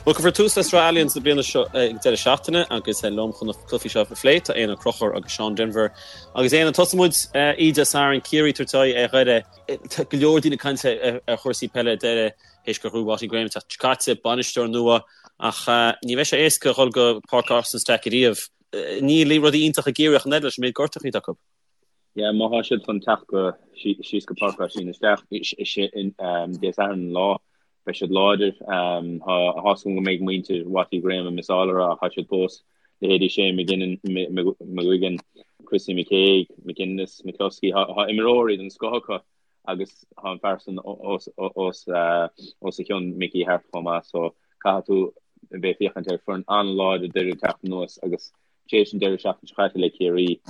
Bhuel, cuirfear tús le Sraith Allianz na bliana seo ag an deireadh seachtaine agus liom chun na cluichí seo a phlé tá Éanna Ó Conchúir agus Seán Denvir. Agus Éanna, tosóidh muid oíche Dé Sathairn, Ciarraí ag tabhairt aghaidh ar Dhoire. Tá go leor daoine ag caint ar chúrsaí peile Doire théis gur ghnóthaigh Watty Graham an tseachtain seo caite, bainisteoir nua, ach ní bheidh sé éasca a dhul go Páirc Austin Stack ariamh. Níl rudaí iontach i gCiarraí ach an oiread leis an méid gortachaí atá acu. Yeah, má tá siad chun teacht go síos go Páirc Oisín isteach, Dé Sathairn an lá, beidh siad láidir. Tá a fhios agam go mbeidh muintir Watty Graham ag missáil orthu ach tá siad fós, leithéidí Shane McGuigan, Chrissy McKaigue, McGuinness, McCloskey, tá imreoirí den scoth acu agus tá an fear san os a chionn, Mickey Harte chomh maith, so caithfidh tú a bheith ag féachaint ar foireann an-láidir Doire ag teacht anuas agus Tar éis an deireadh seachtaine seo caite le Ciarraí,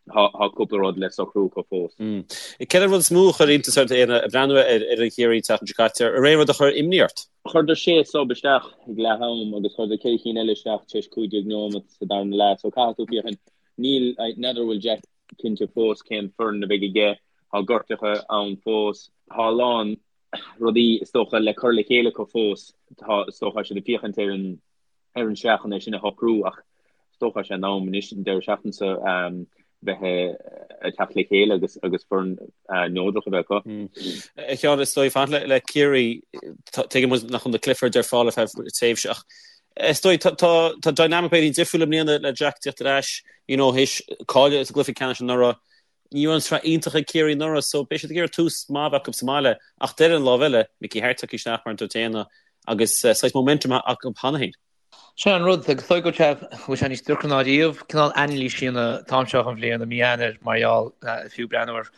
tá cúpla rud le socrú acu fós. Cén rud is mó a chuir iontas ort, Éanna, ag breathnú ar fhoireann Chiarraí an tseachtain seo caite? An raibh aon rud a chuir imní ort? Chuireadar sé sub isteach ag leath am agus chuireadar 4 cinn eile isteach tar éis 15 nóiméad sa darna leath so caithfidh tú féachaint. Níl, n'fheadar an bhfuil Jack cinnte fós cén foireann a bheidh aige, tá gortuithe ann fós, tá a lán rudaí is dócha le cur le chéile acu fós, tá is dócha siad ag féachaint ar an ar an sraith chun é sin a shocrú ach is dócha sé in am anois an deireadh seachtaine seo bheith ag teacht le chéile agus agus foireann neodrach a bheith acu. A Sheáin, is dóigh fanacht le Ciarraí, tuigeann muid nach bhfuil na Cliffords ar fáil ar feadh tréimhse ach is dóigh tá dynamic b'fhéidir difriúil i mbliana le Jack tíocht ar ais, you know, théis cailleadh sa gcluiche ceannais anuraidh. Ní raibh an tsraith iontach ag Ciarraí anuraidh so beidh siad ag iarraidh tús maith a bheith acu sa mbaile ach ar an lámh eile, Mickey Harte tagtha isteach mar a dúirt Éanna agus saghas momentum acu cheana féin. Sin an rud, agus is dóigh go bhfuil sé níos deacra ná riamh cineál anailís a dhéanamh an t-am seo den bhliain, i mí Eanáir, mar gheall, fiú breathnú ar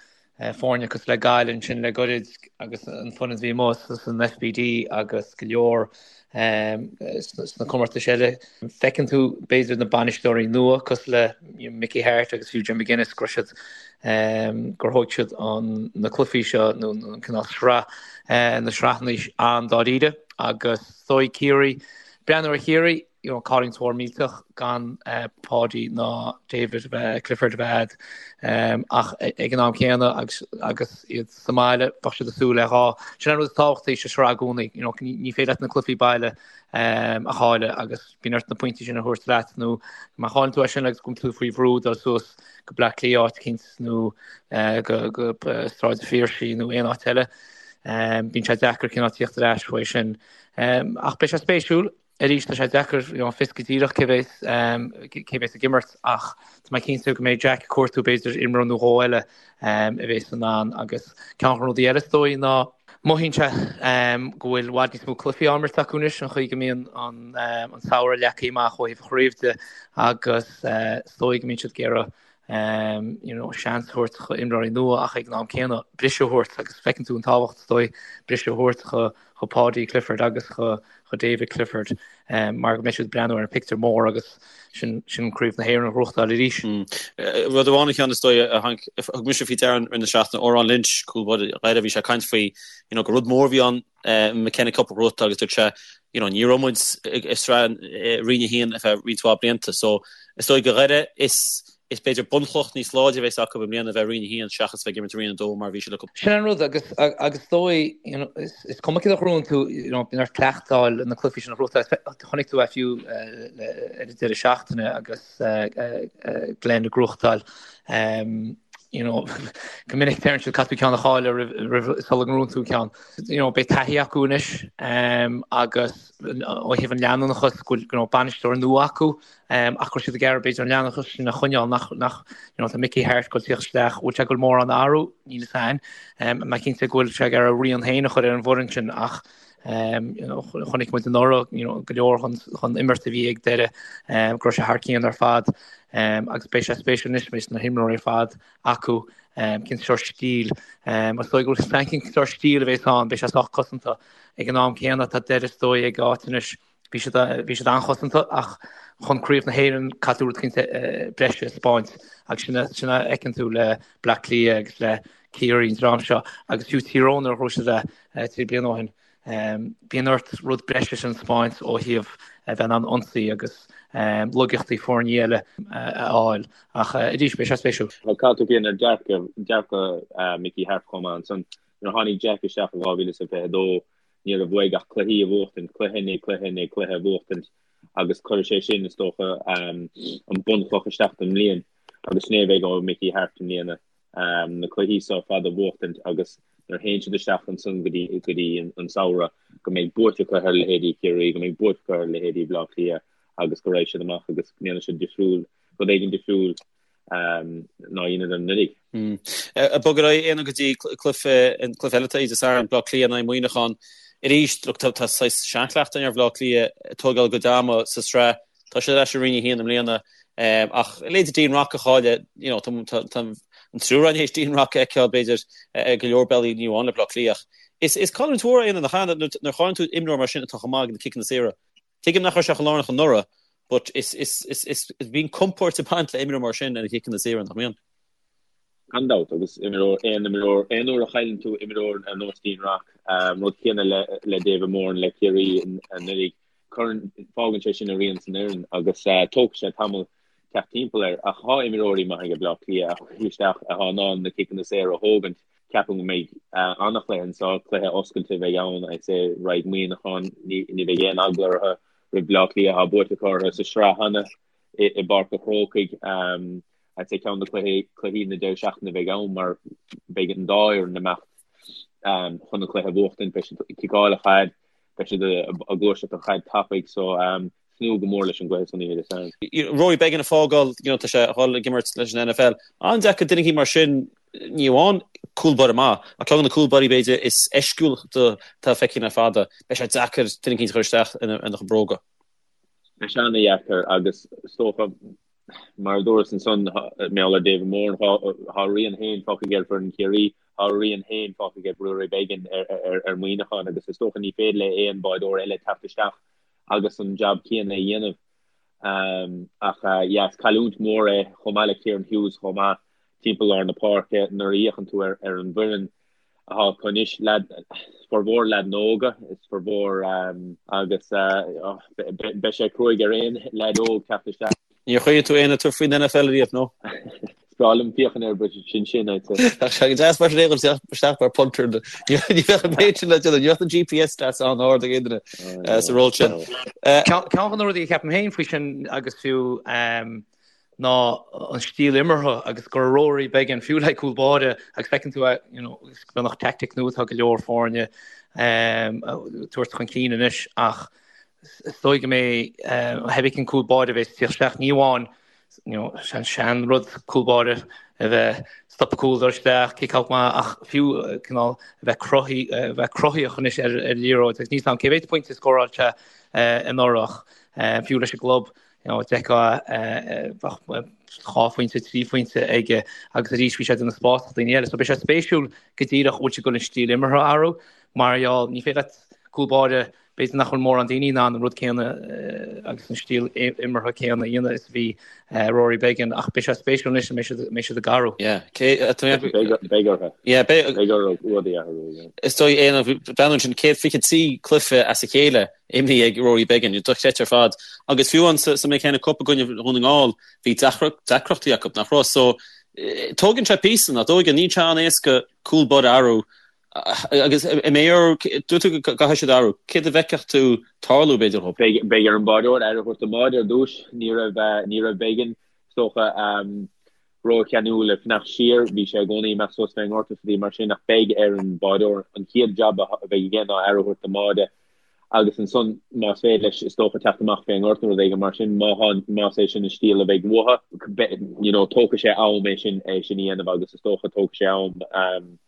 foirne cosúil le Gaillimh ansin le goirid agus an foireann a bhí amuigh san FBD agus go leor sna comórtais eile. Feiceann tú b'fhéidir na bainisteoirí nua cosúil le Mickey Harte agus fiú Jim McGuinness go raibh siad gur thóg siad na cluichí seo nó an cineál sraith na sraitheanna an-dáiríre agus is dóigh Ciarraí breathnú ar Chiarraí you know, cailliúint mhór millteach gan Paudie ná David Clifford a bheith a'd ach ag an am céanna agus agus iad sa mbaile bheadh siad ag súil le dhá. Sin an rud is tábhachtaí sa sraith i gcónaí, you know, ní féidir leat na cluichí baile a chailleadh agus bíonn ort na pointí sin a thabhairt leat nó má chailleann tú é sin agus go tú faoi bhrú dul suas go Bleá Cliath áit eicínt nó go go Sráid an Phiarsaigh nó aon áit eile. Bíonn sé deacair cineál tíocht ar ais uaidh sin. Ach beidh sé spéisiúil. Arís, tá sé deacair you know, fios go díreach cé bheas cé bheas ag imirt ach tá mé cinnte go mbeidh Jack ag cuartú b'fhéidir imreoir nó dhó eile a bheas in ann agus ceann de na rudaí eile is dóigh ná mothaíonn sé go bhfuil i bhfad níos mó cluichí á imirt acu anois an chaoi go mbíonn an an samhradh leagtha amach ó thaobh an chraobh de agus is dóigh go mbíonn siad ag iarraidh you know, seans a thabhairt do imreoirí nua ach ag an am céanna briseadh a thabhairt agus feiceann tú an tábhacht is dóigh briseadh a thabhairt do do Paudie Clifford agus do David Clifford mar go mbeidh siad ag breathnú ar an pictiúr mór agus sin sin Craobh na hÉireann a ghnóthachtáil arís. Rud amháin a Sheáin is dóigh a tháinig thug mise faoi deara i rith na seachtaine Odhrán Lynch cúl báire Dhoire bhí sé ag caint faoi you know gur rud mór a bhí ann McKenna Cup a ghnóthachtáil agus dúirt sé you know ní raibh muid i sraith Roinn 1 ar feadh roinnt mhaith blianta so is dóigh do Dhoire is is b'fhéidir bunchloch níos láidre a bheas acu i mbliana a bheith i Roinn 1 seachas bheith ag imirt i Roinn 2 mar a bhí siad le Sin an rud agus agus is dóigh you know is is cuma céard a ghnóthaíonn tú you know bíonn ort cleachtáil na cluichí sin a ghnóthachtáil. Chonaic tú é fiú ar an deireadh seachtaine agus Glen ag gnóthachtáil you know go minic deireann siad caithfidh tú ceann a chailleadh roimh roimh sula ngnóthaíonn tú ceann. You know beidh taithí acu anois agus ó thaobh an leanúnachas go bhfuil you know bainisteoir nua acu ach go bhfuil siad ag iarraidh b'fhéidir an leanúnachas sin a choinneáil nach nach you know tá Mickey Harte ag dul tíocht isteach bhfuil sé ag dul mórán a athrú níl a fhios a'inn. Mé cinnte go bhfuil sé ag iarraidh a rian féin a chur ar an bhfoireann sin ach Chonaic muid anuraidh go leor den imirt a bhí ag Doire go raibh sé thar cionn ar fad agus beidh sé spéisiúil anois beidh na himreoirí ar fad acu cén sórt stíl is dóigh go bhfuil cén sórt stíl a bheas ann beidh sé sách cosanta ag an am céanna tá Doire is dóigh ag áit anois bhí siad bhí siad an-chosanta ach chun craobh na hÉireann caithfidh tú rud éicint breise a 'spáint agus sin sin a fheiceann tú le Bleá Cliath agus le Ciarraí an dream seo agus fiú Tír Eoghain nuair a ghnóthaigh siad é 3 bliana ó shin. Bíonn ort rud breise sin a 'spáint ó thaobh a bheith in ann ionsaí agus laigeachtaí foirne eile a fháil ach arís beidh sé spéisiúil. Caithfidh tú féachaint ar dearcadh dearcadh Mickey Harte chomh maith ansan. Nuair a tháinig Jack isteach i 2022. Ní raibh uaidh ach cluichí a bhuachtaint, cluiche i ndiaidh cluiche i ndiaidh cluiche a bhuachtaint agus cuirfidh sé sin, is dócha, an bunchloch isteach don mbliain agus sin é a bheidh ó Mickey Harte i mbliana, na cluichí seo ar fad a bhuachtaint agus nuair a théann siad isteach ansan go dtí go dtí an samhradh go mbeidh buaite acu ar leithéidí Chiarraí, go mbeidh buaite acu ar leithéidí Bhaile Átha Cliath agus go raghaidh siad amach agus go ndéanfaidh siad difriúil, rud éigin difriúil ná a dheineadar anuraidh. Ag bogadh ar aghaidh Éanna go dtí cluiche cluiche eile atá Dé Sathairn, Bleá Cliath in aghaidh Muineachán. Arís, look, tá tá saghas seanchleachtadh ar Bhleá Cliath ag tógáil a gcuid ama sa sraith. Tá siad ar ais i Roinn 1 i mbliana. Ach leithéidí Dean Rock a chailleadh, you know, tá tá an triúr againn théis Dean Rock a fheiceáil b'fhéidir ar go leor bealaí ní amháin le Bleá Cliath ach is is cailliúint mhór é Éanna nach ea nuair a chailleann tú imreoir mar sin atá chomh maith ag na ciceanna saora. Tuigim nach raibh sé chomh lárnach anuraidh but is is is is bíonn compord ag baint le imreoir mar sin ar na ciceanna saora, nach mbíonn? Gan dabht, agus imreoir, aon imreoir, aon uair a chailleann tú imreoir ar nós Dean Rock, rud céanna le le David Moran le Ciarraí anuraidh, cuireann, fágann sé sin a rian san fhoireann agus tógfaidh sé tamall teacht timpeall air. Ach tá imreoirí maithe ag Bleá Cliath a chuirfidh isteach atá in ann na ciceanna saora a thógaint. Ceapaim go mbeidh an-chluiche anseo, cluiche oscailte a bheidh ann, I'd say, raghaidh Muineachán, ní bheidh aon eagla orthu roimh Bleá Cliath, tá buaite acu orthu sa sraith cheana i bPáirc an Chrócaigh. I'd say ceann de chluichí na deireadh seachtaine a bheidh ann mar beidh an dá fhoireann ag imeacht chun an cluiche a bhuachtaint, beidh siad ag ciceáil an chaid, beidh siad ag gluaiseacht an chaid tapaidh so tnúth go mór leis an gcluiche san oíche Dé Sathairn. Rory Beggan ag fágáil, you know, tá sé ag dul ag imirt leis an NFL. An-deacair duine éicint mar sin, ní amháin cúl báire maith, ach ceann de na cúl báirí b'fhéidir is eisciúla atá feicthe le fada. Beidh sé deacair duine éicint a chur isteach ina chuid bróga. Beidh sé an-dheacair agus is dócha, mar a dúras ansan, mar gheall ar David Moran, tá a rian féin fágtha aige ar foireann Chiarraí, tá a rian féin fágtha aige Rory Beggan ar Mhuineachán agus is dócha ní féidir le aon bháireoir eile teacht isteach agus an jab céanna a dhéanamh. Ach yeah, is cailliúint mhór é, chomh maith le Kieran Hughes chomh maith, timpeall lár na páirce nuair a fhéachann tú ar an bhfoireann atá acu anois, leaid, formhór leaideanna óga, is formhór agus beidh sé cruaidh ar aon leaid óg teacht isteach. Níor chuimhnigh tú Éanna tabhairt faoin NFL ariamh, nó? Is breá liom féachaint air but sin sin, I'd say. Bheadh sé go deas mar sin é dhul isteach mar punter. Ní bheadh an méid sin le déanamh, ní bheadh an GPS stats an-ard ag aon duine sa ról sin. Ceann de na rudaí a cheapaim féin faoi sin agus fiú ná an stíl imeartha agus go raibh Rory Beggan fiú le cúl báire agus feiceann tú é, you know, beagnach tactic nua atá go leor foirne ag tabhairt chun cinn anois ach is dóigh go mbeidh theibí cén cúl báire a bheas ag tíocht isteach ní amháin you know, an sean rud cúl báire a bheith stopadh cúl dul isteach, kick out maith ach fiú cineál a bheith cruthaí a bheith cruthaíoch anois ar ar liathróid agus níl 's a'm cé mhéad pointe a scóráil sé anuraidh ach fiú leis an gclub you know, d'fheicfeá bheadh 2 phointe, 3 phointe aige agus arís bhí sé ag déanamh spás do daoine eile. So beidh sé spéisiúil go díreach bhfuil siad ag dul an stíl imeartha a athrú mar gheall ní féidir leat cúl báire B'fhéidir nach bhfuil mórán daoine in ann an rud céanna agus an stíl imeartha céanna a dhéanamh is a bhí Rory Beggan ach beidh sé spéisiúil anois an mbeidh siad ag athrú. Yeah, cé Beidh orthu. Yeah, beidh orthu rudaí a athrú, yeah. Is dóigh Éanna, breathnú ansin 123 cluiche as a chéile imrithe ag Rory Beggan, dochreidte ar fad. Agus fiú an sa McKenna Cup i gcoinne Dhún na nGall, bhí deacrachtaí acu, nach raibh? So, tógann sé píosa, nach dtógann? Níl sé an-éasca cúl báire a athrú Agus an mbeidh orthu, dúirt tú go gcaithfidh siad athrú, céard a bhfeicfeadh tú tarlú, b'fhéidir, dhóibh? Beidh ar an báireoir aire a thabhairt don mbáide ar dtús. Ní raibh, ní raibh Beggan, is dócha, rócheanúil ag fanacht siar. Bhí sé i gcónaí ag imeacht suas fén ngort is rudaí mar sin ach beidh ar an báireoir an chéad jab a bheidh aige ná aire a thabhairt don mbáide agus ansan más féidir leis is dócha teacht amach fén ngort nó rud éigin mar sin má tá, más é sin an stíl a bheidh uathu. You know, tógfaidh sé am é sin, é sin a dhéanamh agus is dócha tógfaidh sé am.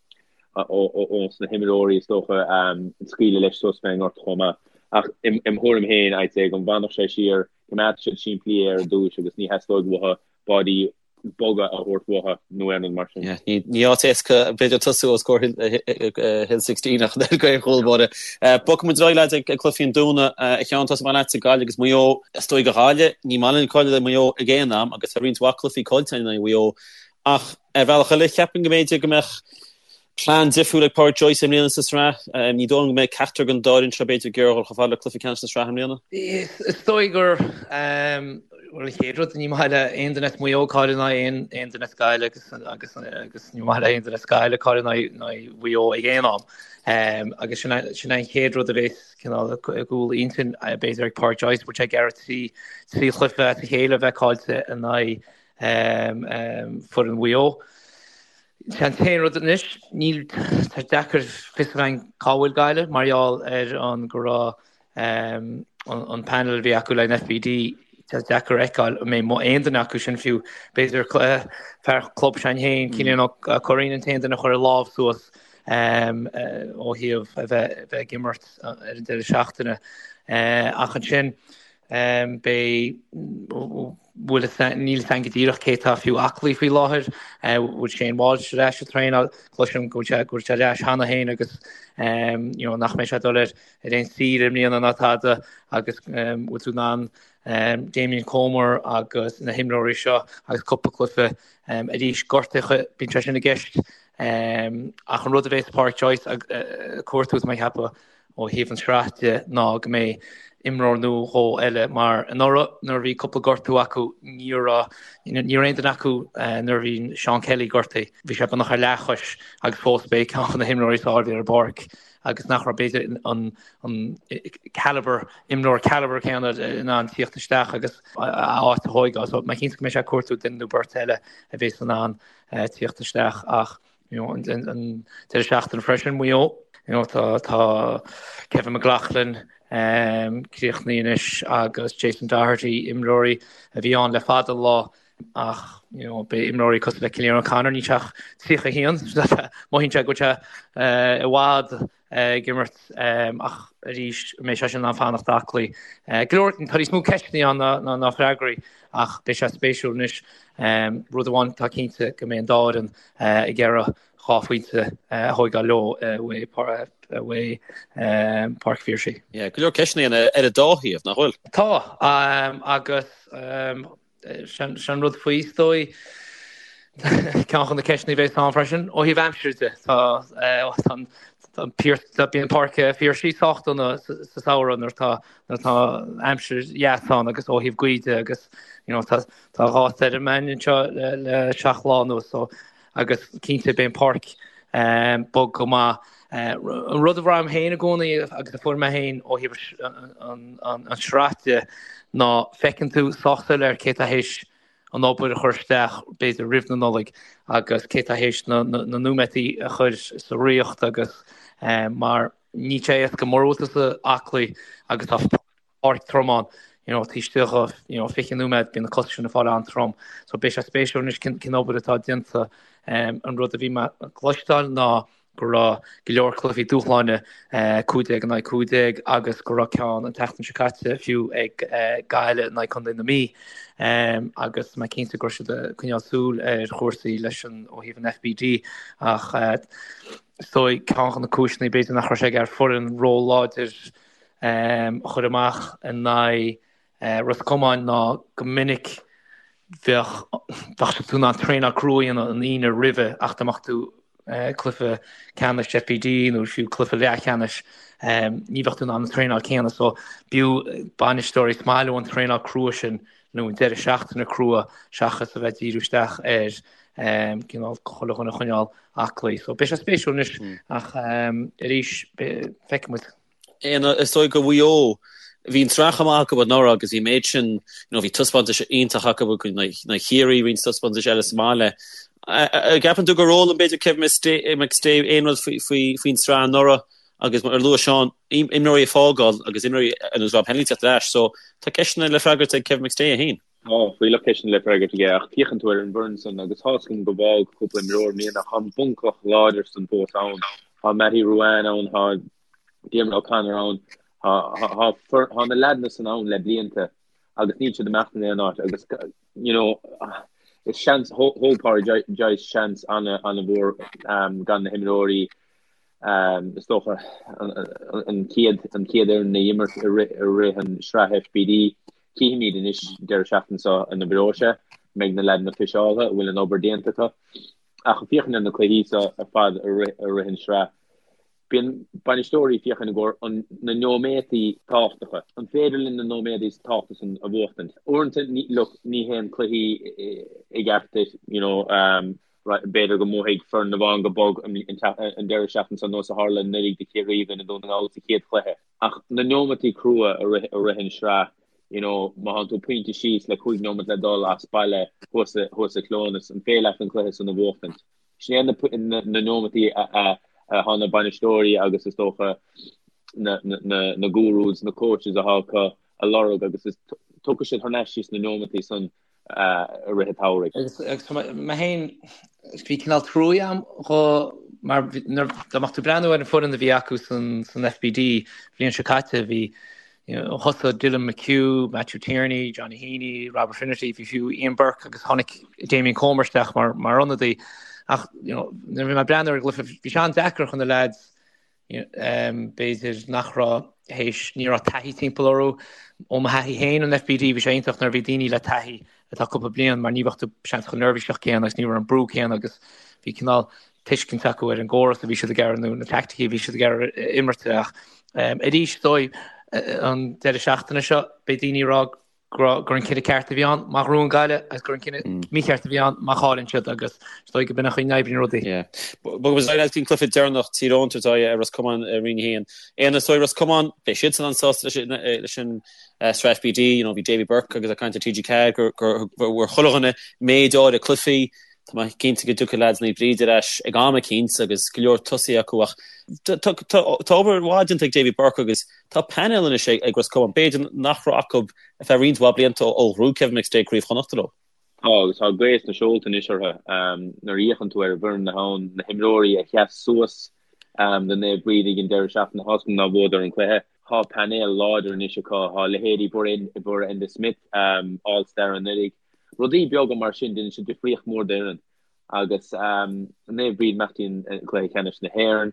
ós na himreoirí is dócha scaoileadh leis suas fén ngort chomh maith. Ach im thuairim féin, I'd say go bhfanfadh sé siar, coimeádfaidh siad simplí é ar dtúis agus ní theastóidh uathu báidí boga a thabhairt uathu nó aon rud mar sin. Ní áit éasca b'fhéidir tosú os comhair Hill 16 ach an oiread do chúl báire. Bogfaidh muid ar aghaidh leaids ag cluichí an Domhnaigh. A Sheáin, tosóidh mé leatsa, Gaillimh agus Maigh Eo. Is dóigh do Ghaillimh, ní maith linn cailleadh le Maigh Eo ag aon am agus tá roinnt mhaith cluichí caillte in aghaidh Mhaigh Eo ach Ar bhealach eile, cheapfainn go mb'fhéidir go mbeadh plean difriúil ag Pádraic Joyce i mbliana sa tsraith. Ní dóigh liom go mbeidh ceachtar den dá fhoireann seo b'fhéidir ag iarraidh dul chomh fada le cluiche ceannais na sraithe i mbliana. Is dóigh gur. Bhuel, an chéad rud, ní maith le aon duine as Maigh Eo cailleadh in aghaidh aon duine as Gaillimh agus agus agus ní maith le aon duine as Gaillimh cailleadh in aghaidh Mhaigh Eo ag aon am. Agus sin sin an chéad rud a bhéas cineál i gcúl intinn b'fhéidir ag Pádraic Joyce, bhfuil sé ag iarraidh trí trí chluiche as a chéile a bheith caillte in aghaidh foireann Mhaigh Eo. Sé an t-aon rud anois, níl, tá deacair fios a bheith againn cá bhfuil Gaillimh mar gheall ar an go raibh an panel a bhí acu le an FBD, tá deacair a fheiceáil an mbeidh aon duine acu sin fiú, b'fhéidir fear club s'againn féin, Cillian Ó Curraoin an t-aon duine a chuir a lámh suas ó thaobh a bheith ag imirt ar an deireadh seachtaine. Ach ansin beidh. bhfuil fhios a'inn, níl fhios a'inn go díreach cé tá fiú aclaí faoi láthair, bhfuil Shane Walsh ar ais ag traenáil, cloisim go bhfuil sé go bhfuil sé ar ais cheana féin agus you know nach mbeidh sé ag dul ar ar aon saoire i mbliana ná tada agus bhfuil tú in ann Damien Comer agus na himreoirí seo agus cúpla cluiche arís gortuithe, bíonn sé sin i gceist ach an rud a bhéas Pádraic Joyce ag cuartú tá mé ag ceapadh ó thaobh an sraith de ná go mbeidh imreoir nó dhó eile mar anuraidh nuair a bhí cúpla gortú acu ní raibh ní raibh aon duine acu nuair a bhí Seán Kelly gortaithe bhí sé beagnach ar leathchois agus fós b'é ceann de na himreoirí is fearr a bhí ar an bpáirc agus nach raibh b'fhéidir an an caliber imreoir caliber céanna in ann tíocht isteach agus a áit a thóigeáil so mé cinnte go mbeidh sé ag cuartú duine nó beirt eile a bhéas in ann tíocht isteach ach you know, an deireadh seachtaine freisin, Maigh Eo. You know, tá, tá Kevin McLaughlin um, críochnaithe anois agus Jason Doherty, imreoirí a bhí ann le fada an lá ach you know, beidh imreoirí cosúil le Cillian O'Connor níl sé ach 31, mothaíonn sé go bhfuil sé uh, i bhfad ag imirt ach arís an mbeidh sé sin in ann fanacht aclaí. Go leor, tá níos mó ceisteanna ann ná freagraí ach beidh sé spéisiúil anois. Rud amháin atá cinnte go mbeidh an dá fhoireann ag iarraidh 2 phointe a thóigeáil leo uaidh Páirc Phiarsaigh. Go leor ceisteanna ar an dá thaobh, nach bhfuil? Tá, agus Sin an rud faoi, is dóigh. Ceann de na ceisteanna a bheas ann freisin, ó thaobh aimsire de. Tá bíonn Páirc Phiarsaigh sách dona sa samhradh nuair atá nuair atá aimsir dheas ann agus ó thaobh gaoth de agus you know tá tá 2 stoirm ann anseo le le 7 lá anuas so agus cinnte beidh an páirc bog go maith. An rud a bhraithim féin i gcónaí agus a fuair mé féin ó thaobh an sraith de ná feiceann tú sách soiléir cé tá théis an obair a chur isteach b'fhéidir roimh na Nollaig agus cé tá théis na nóiméadaí a chur sa riocht agus mar níl sé éasca mura bhfuil tusa aclaí agus tá páirc trom ann, you know, taobh istigh de, you know, 20 nóiméad, bíonn na cosa sin ag fáil an-trom. So beidh sé spéisiúil anois cén, cén obair atá déanta. Um, an rud a bhí mé ag cloisteáil ná go raibh go leor cluichí dúshláine, eh, 15 in aghaidh 15 agus go raibh ceann an tseachtain seo caite fiú ag eh, Gaillimh in aghaidh Contae na Mí. Um, agus mé cinnte go raibh siad ag coinneáil súil ar chúrsaí leis an ó thaobh an FBD ach eh, is dóigh ceann de na cúiseanna b'fhéidir nach raibh sé ag iarraidh foireann ró-láidir a chur amach in aghaidh Ros Comáin ná go minic bheadh bheadh tú in ann traenáil crua a dhéanamh an Aoine roimhe ach dá mbeadh tú cluiche ceannais FBD nó fiú cluiche leathcheannais ní bheadh tú in ann an traenáil céanna so b'fhiú bainisteoirí is maith leo an traenáil crua sin nó an deireadh seachtaine crua seachas a bheith díriú isteach ar cineál chuile dhuine a choinneáil aclaí. So beidh sé spéisiúil anois ach arís feicfidh muid. Éanna, Is dóigh go Mhaigh Eo, bhí an tsraith chomh maith acu anuraidh agus bhí an méid sin, you know, bhí taispeántais iontach acu in aghaidh Chiarraí, roinnt taispeántais eile sa mbaile. An gceapann tú gur fhoghlaim b'fhéidir Kevin McStay aon rud faoin tsraith anuraidh agus mar a luaigh Seán, imreoirí ag fágáil agus imreoirí ar nós Rob Hennelly teacht ar ais, so tá ceisteanna le freagairt ag Kevin McStay é féin. Tá fuílleach ceisteanna le freagairt aige ach féachann tú ar an bhfoireann san agus tá's agam go bhfág cúpla imreoir i mbliana ach tá an bunchloch láidir san fós ann. Tá Mattie Ruane ann, tá Diarmuid O'Connor ann, tá tá na leaideanna san ann le blianta agus níl siad ag imeacht in aon áit agus you know is seans thóg Pádraig Joyce seans an-mhór gan na himreoirí is dócha an chéad an chéad fhoireann a imirt i rith an sraith FBD. Cífimid anois deireadh seachtaine seo an oibreoidh sé, an mbeidh na leaideanna fiseáilte, an bhfuil an obair déanta acu. Ach féachaint ar na cluichí seo ar fad i rith an sraith. Bíonn bainisteoirí ag féachaint i gcomhair an na nóiméadaí tábhachtacha. An féidir linn na nóiméadaí tábhachtacha san a bhuachtaint? Uaireanta ní look ní théann cluichí i gceart duit you know b'fhéidir go mbuafaidh foireann amháin go bog an deireadh seachtaine seo nós a tharla anuraidh do Chiarraí i gcoinne Dún na nGall sa chéad chluiche. Ach na nóimeataí crua i rith i rith an sraith you know má thánn tú pointe síos le 5 nóimeat le dul as baile thuas thuas i Cleonas an féidir leat an cluiche san a bhuachtaint? Sin é na nóimeataí a thá na bainisteoirí agus is dócha na gurus, na coaches athá acu a lorg agus is tiocfaidh siad thar n-ais síos na nóimeataí san i rith an tsamhraidh. Agus mé féin, bhí cineál truaí a'm dho mar dá mbeadh tú ag breathnú ar an foireann a bhí acu san FBD bhliain seo caite, bhí Thosaigh Dylan McHugh, Matthew Tierney, Johnny Heaney, Robert Finnerty, bhí fiú Ian Burke agus tháinig Damien Comer isteach mar mar ionadaí. Ach you know, nuair a bhí mé ag breathnú ar an gcluiche, bhí sé an-deacair chun na leaids b'fhéidir nach raibh théis, ní raibh taithí timpeall orthu. Ó mo thaithí féin an FBD, bhí sé iontach nuair a bhí daoine le taithí atá cúpla bliain mar ní bheadh tú seans chomh neirbhíseach céanna agus ní raibh an brú céanna agus bhí cineál tuiscint acu ar an gcóras a bhí siad ag iarraidh nó na teaicticí a bhí siad ag iarraidh imirt ach arís is dóigh an deireadh seachtaine seo beidh daoine ag rá gur an cinneadh ceart a bhí ann má ghnóthaíonn Gaillimh agus gur an cinneadh mícheart a bhí ann má chailleann siad agus is dóigh go b'in an chaoi a n-oibríonn rudaí. Bogfaidh muid ar aghaidh go dtí an cluiche deireanach Tír Eoghain ag tabhairt aghaidh ar Ros Comáin i Roinn 1. Éanna is dóigh Ros Comáin beidh siadsan an-sásta leis an sraith FBD, you know, bhí Davy Burke agus ag caint ar TG4 gur gur bhfuair chuile dhuine méid áirithe cluichí Tá mé cinnte go dtiocfaidh leaids Naomh Bríd ar ais ag am eicínt agus go leor tosaithe acu ach tá obair mhaith déanta ag Davy Burke agus tá painéal anois ag Ros Comáin, b'fhéidir nach raibh acu ar feadh roinnt mhaith blianta ó ghnóthaigh Kevin McStay Craobh Chonnachta leo. Tá agus tá gaoth sna seolta anois orthu. Nuair a fhéachann tú ar an bhfoireann atá ann, na himreoirí a sheas suas do Naomh Bríd ag an deireadh seachtaine, tá's agam nár bhuadar an cluiche. Tá painéal láidir anois acu. Tá leithéidí Bóra Enda Smith, All Star anuraidh, Rudaí beaga mar sin, déanann siad difríocht mhór d'fhoireann. Agus Naomh Bríd imeacht i gcluiche ceannais na hÉireann.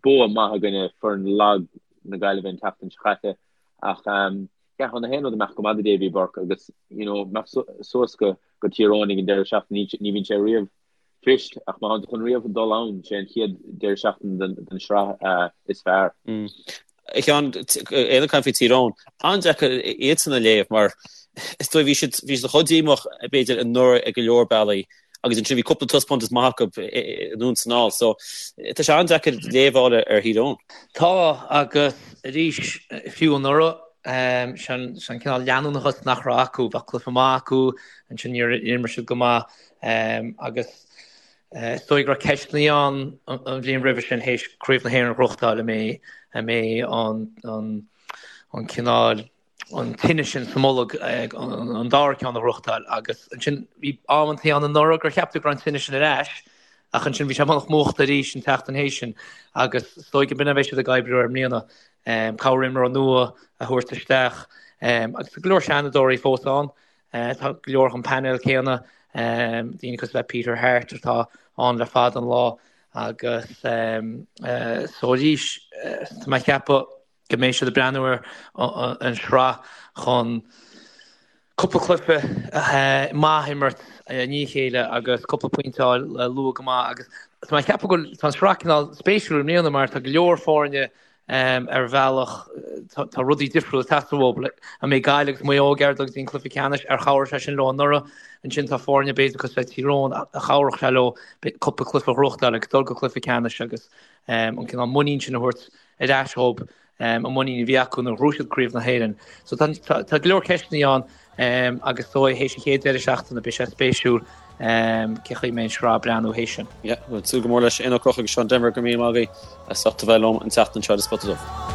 Bua maith i gcoinne foireann lag na Gaillimhe an tseachtain seo caite. Ach yeah, tá na haon rud ag imeacht go maith do Davy Burke agus you know, imeacht suas go Tír Eoghain ag an deireadh seachtaine, ní bhíonn sé riamh fuirist ach má thánn tú chun riamh dul ann, sé an chéad deireadh seachtaine den sraith is fearr. A Sheáin, Éanna ag caint faoi Tír Eoghain, an-deacair iadsan a léamh mar is dóigh bhí siad bhí siad chomh díomách b'fhéidir anuraidh ag go leor bealaí agus ansin bhí cúpla taispeántas maith acu anonn is anall so tá sé an-deacair léamh a fháil ar Thír Eoghain. Tá agus arís fiú anuraidh sin an cineál leanúnachas nach raibh acu, bheadh cluiche maith acu ansin níor imir siad go maith Agus is dóigh go raibh ceisteanna ann an bhliain roimhe sin théis Craobh na hÉireann a ghnóthachtáil an mbeidh an mbeidh an an cineál an tine sin sa mbolg an dara ceann a ghnóthachtáil agus ansin bhí amantaí ann anuraidh gur cheap tú go raibh an tine sin ar ais ach ansin bhí sé beagnach múchta arís an tseachtain théis sin agus is dóigh go b'in a bheidh siad ag oibriú air i mbliana corr-imreoir nua a thabhairt isteach agus tá go leor seanadóirí fós ann Tá go leor den phainéal céanna, daoine cosúil le Peter Harte atá ann le fada an lá agus so arís tá mé ag ceapadh go mbeidh siad ag breathnú ar an sraith chun cúpla cluiche maith a imirt i ndiaidh a chéile agus cúpla pointe a fháil luath go maith agus tá mé ag ceapadh go bhfuil tá an sraith cineál spéisiúil i mbliana mar tá go leor foirne Ar bhealach, tá rudaí difriúla ag teastáil uathu. An mbeidh Gaillimh agus Maigh Eo ag iarraidh dul go dtí an cluiche ceannais? Ar chabhraigh sé sin leo anuraidh? Ansin tá foirne b'fhéidir cosúil le Tír Eoghain a chabhródh sé leo cúpla cluiche a ghnóthachtáil agus dul go cluiche ceannais agus an cineál muinín sin a thabhairt ar ais dhóibh, an muinín a bhí acu nuair a ghnóthaigh siad Craobh na hÉireann. So tá go leor ceisteanna ann agus is dóigh théis an chéad deireadh seachtaine beidh sé spéisiúil cé chaoi a mbeidh an sraith ag breathnú théis sin. Yeah, bhuel, súil go mór leis. Éanna Ó Conchúir agus Seán Denvir, go raibh míle maith agaibh as ucht a bheith liom an tseachtain seo ar An Spota Dubh.